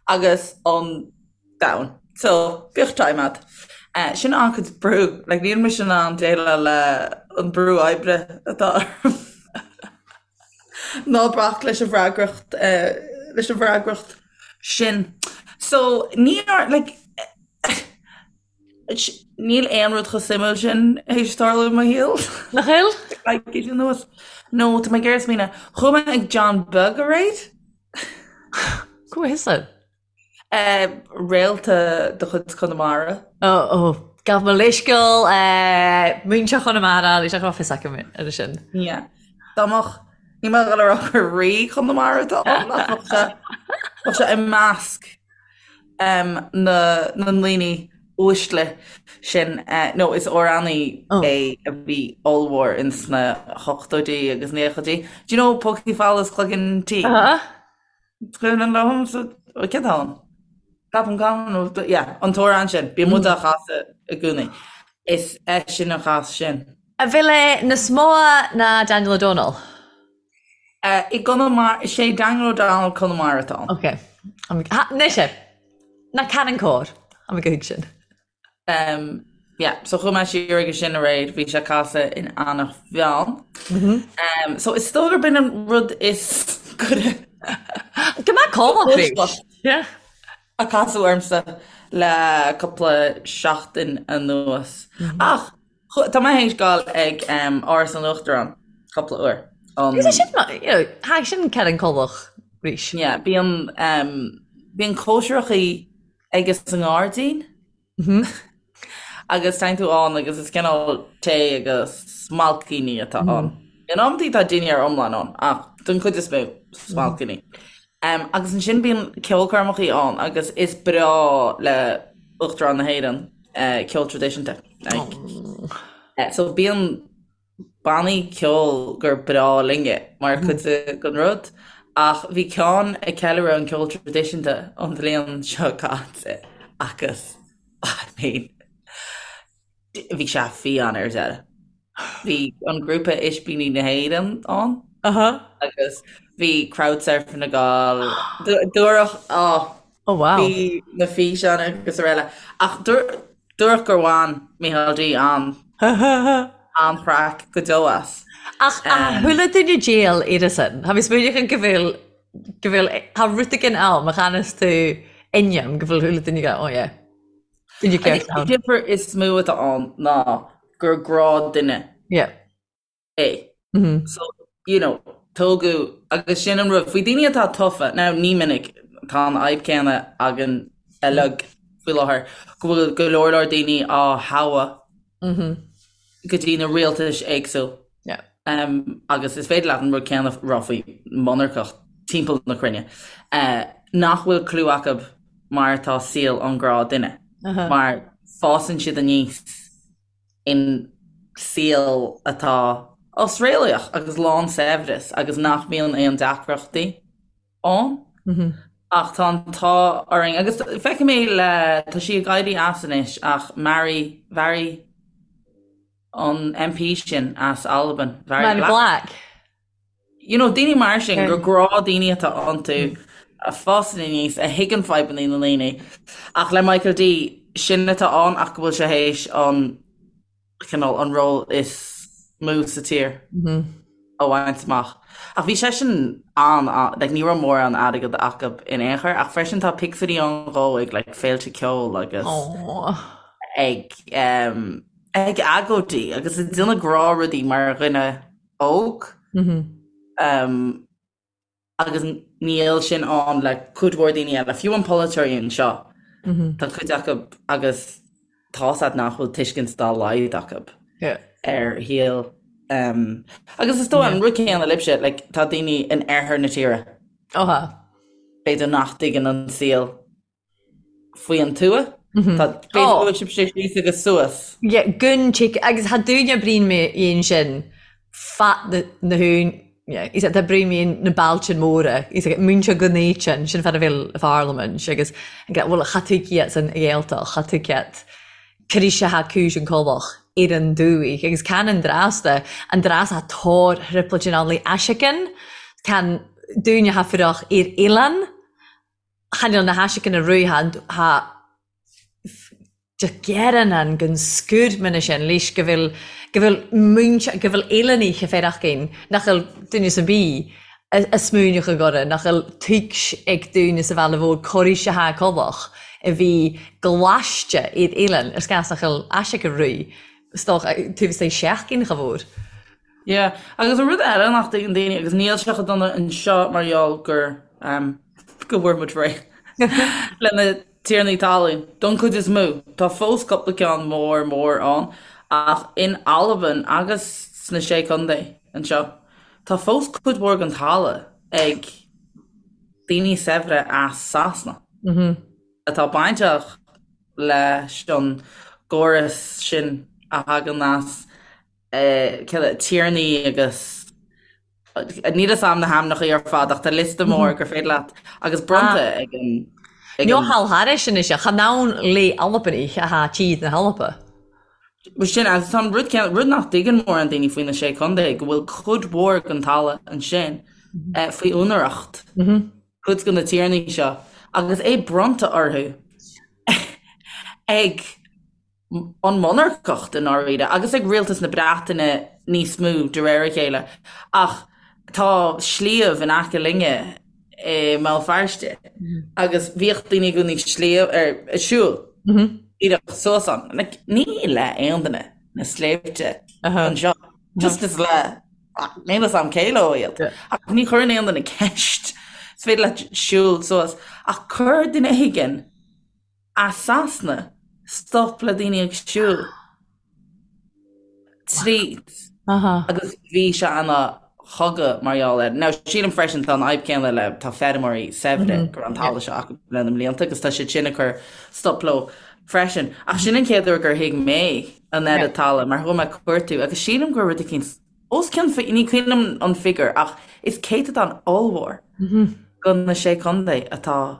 S2: agus an domhan. So, bíodh time agat. Eh, sin an-chuid brú. Like, níl mise in ann déileáil le an brú oibre atá orm. Ná bac leis an bhfreagracht, eh, leis an bhfreagracht sin. So, ní ar, like, níl aon rud chomh suimiúil sin théis tarlú i mo shaol.
S3: Nach bhfuil?
S2: Coicís anuas. No, tá mé ag iarraidh smaoineamh. Chuaigh mé ag John Beag aréir?
S3: Go bhfios dom.
S2: Réalta de chuid Chonamara.
S3: Ó, ó, gabh mo leithscéal, múinteoir Chonamara, ní raibh fios agam ar sin.
S2: Yeah. Dá mbeadh, ní mbeadh a rá gur rí Chonamara atá ann, ach bheadh sé, bheadh sé i measc na, na ndaoine uaisle sin. No, is amhránaí é a bhí ollmhór ins na hochtóidí agus naochaidí. Do you know Pócaí Folamh is Cloigeann Tinn?
S3: Uh-huh.
S2: Cuimhin liom cén t-am? Ceapaim gan yeah, an t-amhrán sin, bíonn muid á chasadh i gcónaí. Is eisean a chas sin.
S3: A bhfuil é níos mó ná Daniel O'Donnell?
S2: I gConamara, is é Daniel O'Donnell Conamara atá ann.
S3: Ok. Anois é. Ná ceanann cóir. Tá mé go thuig sin.
S2: Um, yeah, so chuaigh mé siar aige sin aréir, bhí sé ag casadh in Eanach Mheáin. Mm -hmm. um, so is dóigh gurb in an rud is goire
S3: Go mbeadh cómh
S2: Yeah. A casadh ormsa le cúpla seachtain anuas. Mm -hmm. Ach tá mé théis gabháil ag um, Áras an Uachtaráin cúpla uair.
S3: Um, Is sin you know, tha sin ceann colach rís.
S2: Yeah, bíonn um, bíonn cóisireachaí aige sa ngairdín agus téann tú ann agus is cineál tae agus smailcíní atá ann. In amantaí tá dinnéar iomlán ann ach don chuid is mó smailcíní. Um, agus ansin bíonn ceolchoirmeachaí ann agus is breá le Uachtarán na hÉireann uh, ceol traidisiúnta. Like, uh, so bíonn bannaí ceoil gur breá linne mar chuid den rud, ach bhí ceann ag ceiliúradh an ceol traidisiúnta an bhliain seo caite agus I mean bhí sé fiáin ar deireadh. Bhí an grúpa Ispíní na hÉireann ann agus bhí crowd surfing ag gabháil, dúradh, oh,
S3: Oh wow.
S2: Bhí na físeáin agus araile. Ach dúradh gur bhain Micheál D an an-chraic go deo as.
S3: Ach a chuala duine déal ar sin? Tha mi smaoineachadh go bhfuil go bhfuil tha rud éigin ann má chanas tú inniu go bhfuil chuile duine go oh yeah. Duine ceart
S2: An
S3: ann.
S2: difear is mó atá ann ná gur gnáthdhuine
S3: Yeah.
S2: é. So, you know, tógadh, agus sin an rud, faoi daoine atá tofa, now ní minic, tá an fhadhb céanna againn uilig faoi láthair, go bhfuil go leor leor daoine á thoghadh go dtí na rialtais éagsúil.
S3: Yeah.
S2: Um, agus is féidir leat an rud céanna rá faoi monarcacht timpeall na cruinne, uh, nach bhfuil clue acu mar atá saol an ghnáthdhuine, uh -huh. mar fásann siad aníos in saol atá osréalaíoch agus lán saibhreas agus nach mbíonn aon deacrachtaí ann. Ach tá an t-ádh orainn, agus feicim é le, tá sí ag éirí as anois ach Mhairi, Mhairi an MP sin as Albain,
S3: Mhairi Black.
S2: You know, daoine mar sin, gur gnáthdhaoine atá iontu, a fásann aníos, a thuigeann fadhbanna na ndaoine. Ach le Michael D, sin atá ann ach go bhfuil sé théis an, cineál, an ról is mó sa tír a bhaint amach. Ach bhí seisean an, like, ní raibh mórán airgead acu in aon chor, ach freisin tá pictiúirí ann dhó ag, like, féilte ceoil agus ag, em, ag agóidí agus ag déanamh gnáthrudaí mar dhuine. óg agus níl sin ann le cuid mhór daoine eile, fiú an polaiteoirí anseo, tá cuid acu agus tá's a'd nach bhfuil tuiscint dá laghad acu ar shaol agus is dóigh an rud céanna libhse, like, tá daoine in oirthear na tíre, b'fhéidir nach dtuigeann an saol faoi an tuath. Tá b'fhéidir go bhfuil sibhse síos agus suas.
S3: Yeah, gun chick agus tha dúine brín mé dhéin sin fat na na hún yeah, is tá brín mé na bailtin móra is ag múintear go néitean sin fad a bhfuil a pharlaimint agus bhfuil cha tú ciat san Ghaeltacht cha tú ciat críse ha cúis an colach ar an dúigh agus can an drasta an dras ha tóir thriplait in ann le aisicean can dúine ha fuireach ar oileán Chan eil na haiseacanna ruadh tha gearann an gon scúr mine sin leis go bhfuil go bhfuil múinte go bhfuil eileanaich a féarachgain nach bhfuil duine sa bith a smuaineach a gcorra nach bhfuil tuigs ag duine sa bhaile mhór corraís a tha colach a bhí ghlaiste iad eilean ar scas nach bhfuil aiseaca ruadh stoch taobh istigh seachgain cha mhór.
S2: Yeah, agus an rud eile nach dtuigeann daoine, agus níl sé chomh dona anseo mar gheall gur, ehm, go bhfuair muid réidh le na tiarnaí talún, don chuid is mó. Tá fós cúpla ceann mór mór ann, ach in Albain agus sna Sé Chontae anseo, tá fós cuid mhór den talamh ag daoine saibhre as Sasana atá bainteach leis an gcóras sin a thagann as tiarnaí agus níl fhios a'm na hainmneacha ar fad ach tá liosta mór gur féidir leat agus bronnta ag an
S3: ag an Nó thairis anois chan ann le Albanach atá tíd na hAlba.
S2: Bhuel sin agus tá an rud céanna, rud nach dtuigeann mórán daoine faoi na Sé Chontae go bhfuil cuid mhór den talamh ansin faoi úinéireacht cuid de na tiarnaí seo agus é bronnta orthu ag an monarcacht i ndáiríre, agus ag rialtas na Breataine níos mó de réir a chéile. Ach tá sliabh in aice linne i mBéal Feirste agus bhíodh daoine i gcónaí sliabh ar ag siúl díreach suas ann. Like, ní le aon duine na sléibhte anseo. Just is le níl fhios a'm cé leo iad. Ach ní chuireann aon duine ceist. Is féidir leat siúl suas. Ach chuir duine éigin As Sasana, stop le daoine ag siúl tríd agus bhí sé ina chogadh mar gheall air. Now, sílim freisin tá an fhadhb céanna le tá feirmeoirí saibhre go raibh an talamh seo acu le na mblianta agus tá siad sin ag cur stop leo freisin. Ach sin an chéad uair gur thuig mé an oiread talaimh mar chuaigh mé ag cuartú agus sílim gur rud eicínt os cionn, ní cuimhin liom an figiúr ach is céatadán ollmhór de na Sé Chontae atá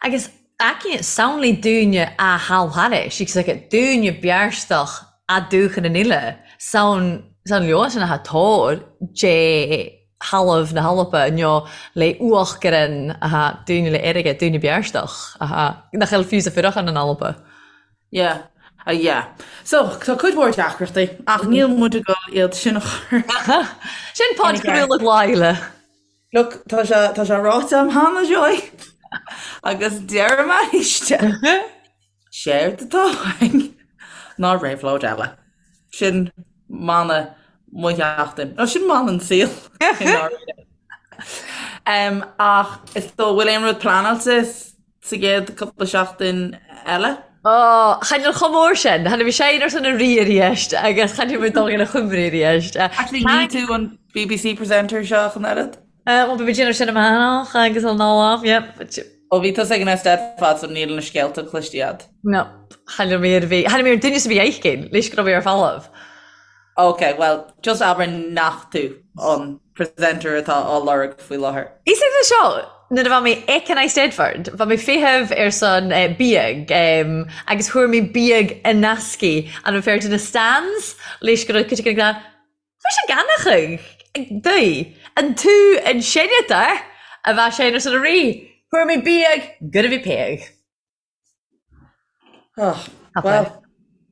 S3: Agus aici samhlaigh dúine a thall thairis, agus aici dúine bearstach a dúchan an uile, samhain leo sin atá tóir dé thalamh na hAlba nó le uachgaran atá dúine le airgead, dúine bearstach atá nach bhfuil fiú sa fuireachán in Alba.
S2: Yeah. Uh, yeah. So, tá cuid mhór deacrachtaí, ach níl muid ag dul iad sin a chur.
S3: Sin podchraoladh Laila.
S2: Look, tá sé, tá sé ráite a'm cheana, Joy. Agus deirim arís. Séard atá uainn ná réabhlóid eile. Sin mana mo sheachtain. Nó sin mana an saoil. i ndáiríre. Um, ach is dóigh, bhfuil aon rud pleanáilte sa gcéad cúpla seachtain eile?
S3: Ó, chan eil chomh mór sin. Tha mi seinn ar son a rí a-rithist agus chan eil mi dol ina chuimri a-rithist.
S2: Actually, ní tú an BBC presenter seo ach an oiread?
S3: Bhuel, beidh mé ag déanamh sin amach agus an lá, yep.
S2: Ó, bhí tusa ag an Eisteddfod so níl na scéalta cloiste a'd.
S3: No, chan eil mi ar bith. Chan eil mi ar duine 's a bhí aicinn, leis go raibh mé ar falamh.
S2: Ok, bhuel, just abair nach tú an presenter atá á lorg faoi láthair.
S3: Is é seo, nuair a bha mi ag an Eisteddfod, bha mi feitheamh ar son biadh agus fuair mi biadh an eascaidh an raibh fear de na stands leis go raibh cuid acu ag rá, Bha sé ganachadh daoibh, an tú an senator a bha sé ar son a rí, fuair mi biadh gur a bhí péadh.
S2: Oh, well,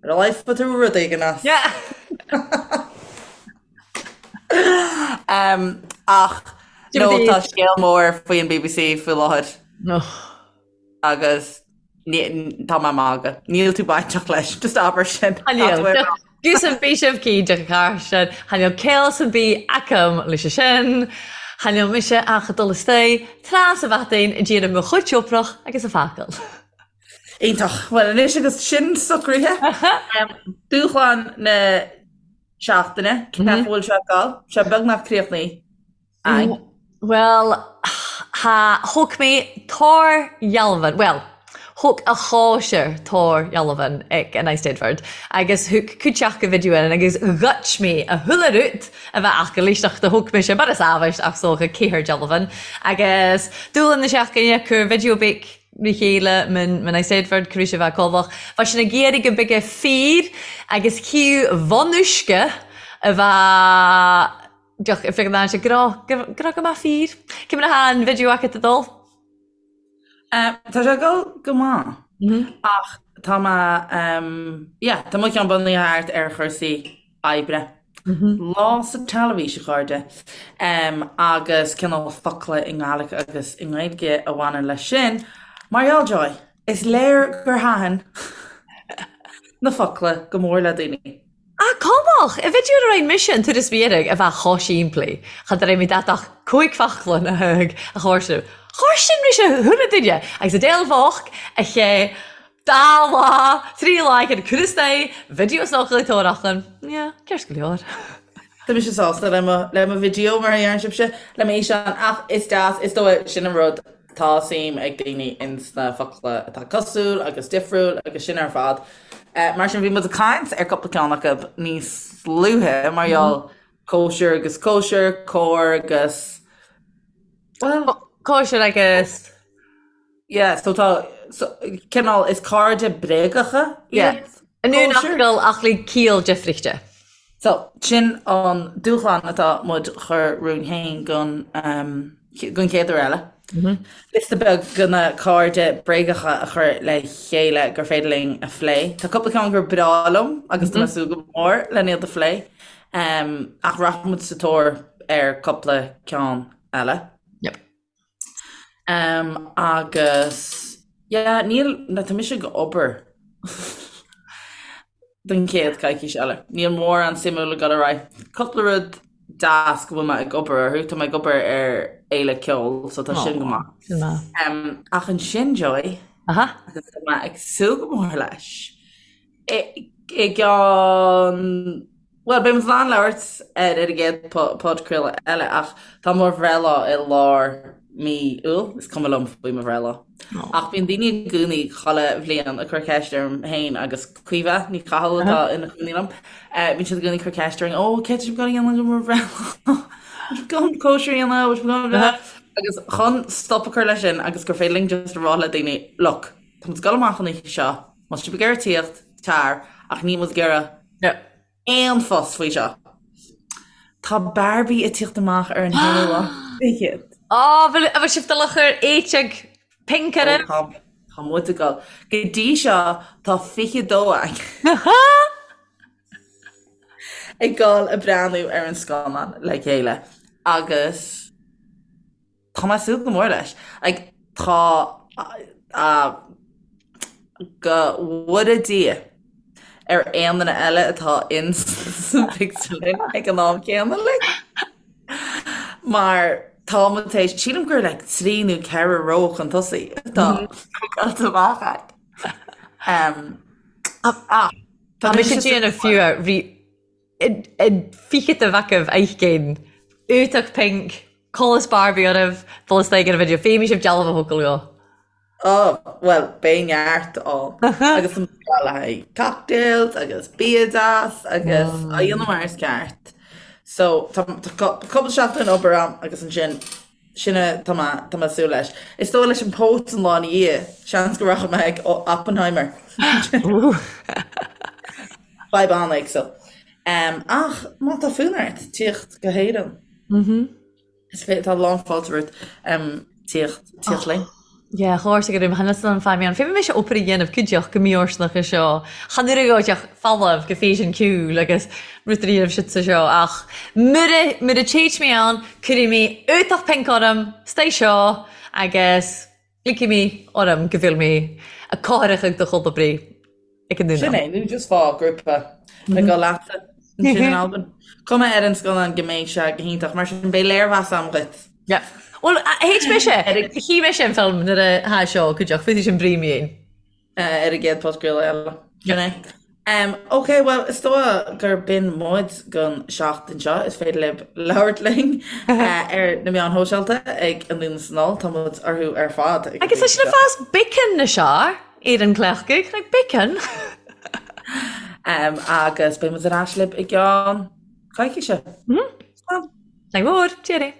S2: ar a laghad fuair tú rud éigin as.
S3: Yeah.
S2: um, ach no, tá scéal mór faoi an BBC faoi láthair.
S3: No.
S2: Agus tá mé ag magadh. Níl tú bainteach leis, just abair sin.
S3: Gus bhí sibh cinnte carsin, chan eil caill a' bith agam leis sin. Chan eil mise ach a' dul astoigh tras a' bhatainn a' déanamh mo chuid oibrich agus a' fágáil.
S2: Iontach. Bhuel anois agus sin socraithe, dúshlán na seachtaine, cén chaoi a bhfuil sé ag dul? Sé beagnach críochnaithe
S3: againn. Bhuel, tha, thug mé tàrdhealbhan, bhuel, thug a chòisir tàrdhealbhan ag an Eisteddfod agus thug cuid aca video in agus ghoid mé a chuile rud a bheith aca leis do thug mise mar is amhais ach 's dócha ceathair dealbhan agus dúshlán na seachtaine, cuir video beag ri chéile man Eisteddfod tar éis a bheith colbhach. Bha sinn ag iarraidh go mbeadh fir agus criú bhun uisce a bheith deoch ag féachaint ann sé grá grá go maith fir. Cé mar atá an video agat ag dul?
S2: Tá sé ag dul go maith ach tá mé yeah tá mo cheann bunaithe thart ar chúrsaí oibre. Lá sa teilifís, a chairde, agus cineál focla i nGàidhlig agus i nGaeilge a bhaineann leis sin. Mar gheall, Joy, is léir gur thaitin na focla go mór le daoine.
S3: Ah, cumadh! I video a roinn mise an turas mhiaraigh a bheadh chomh simplí. Cha raibh mé dat ach cúig focla na thug a chóirsiú. Chóirsin mise chuile duine agus a deilbheach a ché Dá lá, trí lá ag an Cúrsaí video socraí tóraíocht. Yeah, ceart go leor.
S2: Tá mise sásta le mo le mo video mar a deireann sibhse, le m'fhíseán ach is deas, is dóigh, sin an rud, tá suim ag daoine ins na focla atá cosúil agus difriúil agus sin ar fad. Mar sin bhí muid ag caint ar cúpla ceann acu níos luaithe mar gheall cóisir agus cóisir, cóir agus,
S3: bhuel. Cóisir agus.
S2: Yeah, so tá, so, cineál, is cairde bréagacha
S3: iad. An aon fhocal ach le ciall difrichte.
S2: So, sin an dúshlán atá muid chur romhainn féin don, um, don chéad uair eile. Liosta beag de na cairde bréagacha a chur le chéile gur féidir linn a phlé. Tá cúpla ceann gur breá liom agus tá mé ag súil go mór len iad a phlé. Um, ach rachaidh muid sa tóir ar cúpla ceann eile.
S3: Yep.
S2: Um, agus yeah, níl, na, tá mise ag obair don chéad coicís eile. Níl mórán suimiúil ag dul ar aghaidh. Cúpla rud deas go bhfuil mé ag obair orthu, tá mé ag obair ar fhéile ceoil, so tá sin go maith.
S3: Sin maith.
S2: Um, ach ansin, Joy,
S3: Aha.
S2: agus tá mé ag súil go mór leis, i, i gceann Bhuel, beidh muid in ann labhairt air ar an gcéad podchraoladh eile ach tá mo bhreithlá i lár mí Iúil, is cuma liom faoi mo bhreithlá. Ach bíonn daoine i gcónaí chuile bhliain ag cur ceist orm féin agus Caoimhe Ní Chathail atá ina cónaí liom, bíonn siad i gcónaí ag cur ceist orainn, ó, céard tá sibh ag dul a dhéanamh do mo bhreithlá? Bhfuil sibh ag dul cóisir a dhéanamh? Bhfuil sibh ag dul Agus chun stop a chur leis sin agus gur féidir linn just a rá le daoine, look, tá muid ag dul amach an oíche seo, má tá sibh ag iarraidh tíocht, tar, ach níl muid ag iarraidh aon fuss faoi seo. Tá Barbie ag tíocht amach ar an haonú lá fichead.
S3: Á, bhfuil bhfuil sibh dul a chur éiteag pinc
S2: oraibh? Tá tá muid ag dul. Go dtí seo tá 22 againn ag dul ag breathnú ar an scannán le chéile agus Tá mé ag súil go mór leis. Like, tá go bhfóire Dia ar aon duine eile atá in sa phictiúrlann ag an am céanna linn. Mar tá muid tar éis, sílim gur like trí nó ceithre ró chun tosaigh atá bookáilte amach againn. Um,
S3: ach, tá mise ag déanamh fiú ri An fichead a bheadh agaibh oidhche Uatach pinc, colas Barbie oraibh, dul istoigh ar an video, féadfaidh sibh dealbh a thógáil dhó.
S2: Ó, bhuel, beidh neart ann. Agus tá muid ag dul le haghaidh cocktails agus bia deas agus á dhéanamh mar is ceart. So, tá cúpla seachtain obair ann agus ansin Sin é, tá mé, tá mé ag súil leis. Is dóigh leis an póit an lá ina dhiaidh, seans go rachaidh mé ag Oppenheimer. Fadhb an-éagsúil. Ach má tá fonn ort tíocht go hÉirinn, is féidir, tá lán fáilte romhat tíocht, tíocht linn.
S3: Yeah, chomhairse go raibh mo thinneas an feidhm ann. Féadfaidh mise obair a dhéanamh cuideachta go mífhóirsteanach é seo. Chan urgóideach folamh go físean ciúil agus rud a dhéanamh sitsa seo ach mura, mura dtéid mé ann cuirfidh mé uatach pinc orm, stay seo agus ligfidh mé orm go bhfuil mé a cothrach ag do chul oibrí. Ag an
S2: Sin é, nó just faigh grúpa le dul leatsa ansin in Albain. Cuma ar an scannán go mbeidh sé go hiontach, mar sin beidh léirmheas agam dhuit.
S3: Yeah. Bhuel, théid mise, chí mise an film nuair a tha seo cuideachta, féadfaidh sin brí mé.
S2: Ar an gcéad podchraoladh eile. Sin é. Ok, bhuel, is dóigh gur b'in muid don seachtain seo. Is féidir libh labhairt linn ar na meáin shóisialta ag Anonn is Anall, tá muid orthu ar fad.
S3: Agus tá sin ag fás beacon na seo ar an gcleachtadh, like beacon!
S2: Agus beidh muid ar ais libh i gceann coicíse.
S3: Slán! Slán mór, cheerio!